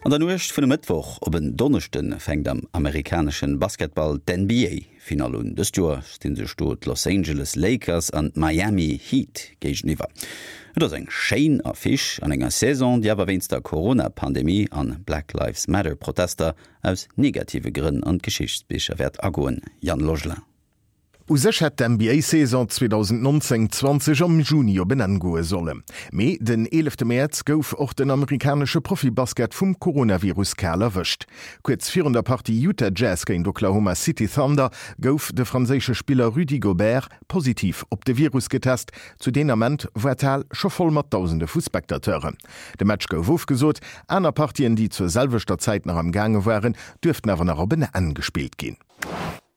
An der Nuecht vun e Mëttwoch op en Donneschde fänkt am amerikanesche Basketball d'NBA-Finall un. Dëst Joer sti sech do d'Los Angeles Lakers an d'Miami Heat géigeniwwer. Et ass eng schéin Affiche an enger Saison, déi awer wéinst der Corona-Pandemie an Black Lives Matter-Protester aus negative Grënn an d'Geschichtsbicher wäert agoen. Yann Logelin. U sech hätt d'NBA-Saison 2019, 20 am Juni op en Enn goe sollen. Mee den eelefte Mäerz gouf och den amerikanesche Profi-Basket vum Coronavirus kal erwëscht. Kuerz virun der Partie Utah Jazz géint Oklahoma City Thunder gouf de franséische Spiller Rudy Gobert positiv op de Virus getest. Zu deen Ament war d'Hal scho voll mat Dausende vu Spectateuren. De Match gouf ofgesot, aner Partien, déi zur selwechter Zäit nach am gaange waren, duerften awer nach op en Enn gespillt ginn.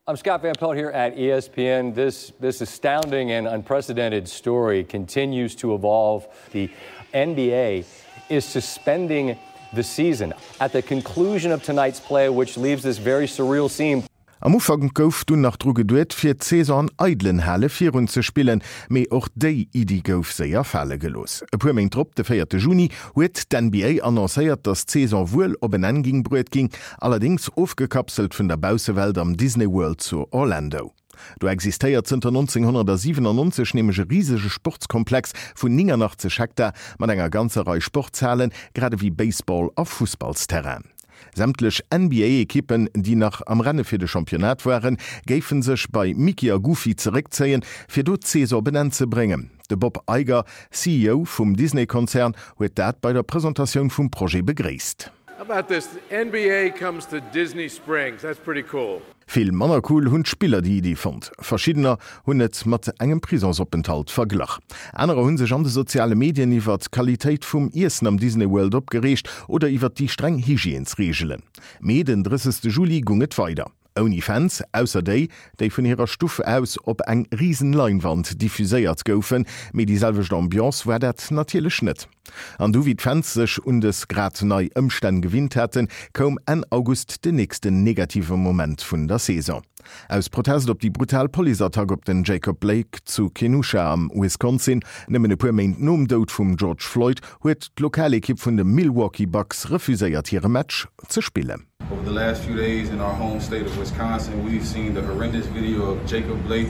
I'm Scott Van Pelt here at ESPN. This this astounding and unprecedented story continues to evolve. The NBA is suspending the season at the conclusion of tonight's play, which leaves this very surreal scene. Am Ufank gouf dunn nach dru geduet, fir d'Saison an eidelen Hale virun ze spillen, mee och déi Iddi gouf séier fale gelooss. E puer Méint drop, de véierte Juni, huet d'NBA annoncéiert, datt d'Saison wuel op en Enn ging bruet ginn, allerdéngs ofgekapselt vun der Baussewelt am Disney World zu Orlando. Do existéiert zënter 1997 nämlech e risege Sportskomplex vun 89 Hektar mat enger ganzer Rei Sportshalen, grad ewéi Baseball a Fussballsterrainen. Sämtlech NBA-Ekippen, déi nach am Renne fir de Championnat waren, géife sech bei Mickey a Goofy zeréckzéien, fir do d'Saison op en Enn ze bréngen. De Bob Iger, CEO vum Disney-Konzern, huet dat bei der Presentatioun vum Projet begréisst. How about this, the NBA comes to Disney Springs, that's pretty cool. Vill manner cool hunn d'Spiller déi Iddi fonnt. Verschiddener hunn et mat engem Prisonsopenthalt verglach. Anerer hu sech an de soziale Medien iwwer d'Qualitéit vum Iessen am Disney World opgereegt oder iwwer déi streng Hygiènesreegelen. Mee den 30 Juli gung et weider. Ouni Fans, ausser déi, déi vun hirer Stuff aus op eng risen Leinwand diffuséiert goufen. Mee déi selwecht Ambiance war dat natierlech net. An du, wéi d'Fans sech un dës grad nei Ëmstänn gewinnt haten, koum Enn August den nächsten negative Moment vun der Saison. Aus Protest op déi brutal Policeattack op den Jacob Blake zu Kenosha am Wisconsin, nëmmen e puer Méint nom Doud vum George Floyd, huet d'Lokalekipp vun de Milwaukee Bucks refuséiert hire Match ze spillen. Over the last few days in our home state of Wisconsin, we've seen the horrendous video of Jacob Blake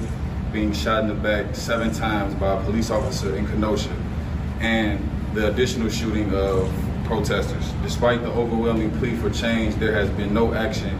being shot in the back seven times by a police officer in Kenosha and the additional shooting of protesters. Despite the overwhelming plea for change, there has been no action.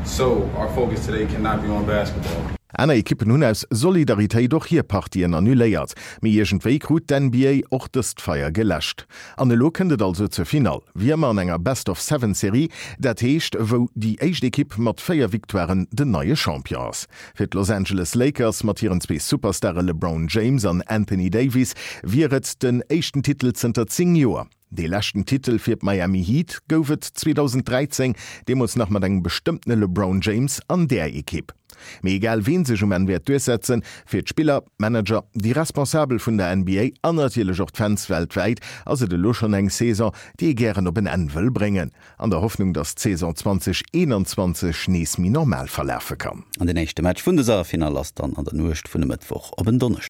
So our focus today cannot be on basketball. Aner Ekippen hunn aus Solidaritéit och hir Partien annuléiert, mee iergendwéi krut d'NBA och dëst Feier geläscht. An elo kënnt et also zur Finall, wéi ëmmer an enger Best-of-Seven-Serie, dat heescht wou déi éischt Ekipp mat 4 Victoiren den neie Champion ass. Fir d'Los Angeles Lakers mat hiren zwee Superstare LeBron James an Anthony Davis wier et den éischten Titel zënter 10 Joer. Dee leschten Titel fir d'Miami Heat gouf et 2013, deemools nach mat engem bestëmmtene LeBron James an där Ekipp. Mee egal ween sech um Enn wäert duerchsetzen, fir d'Spiller, d'Manager, déi Responsabel vun der NBA an natierlech och d'Fans weltwäit ass et elo schonn eng Saison, déi ee gären op en Enn wëll bréngen, an der Hoffnung, datt d'Saison 2021 nees méi normal verlafe kann. An den éischte Match vun dëser Finall ass dann an der Nuecht vun e Mëttwoch op en Donneschdeg.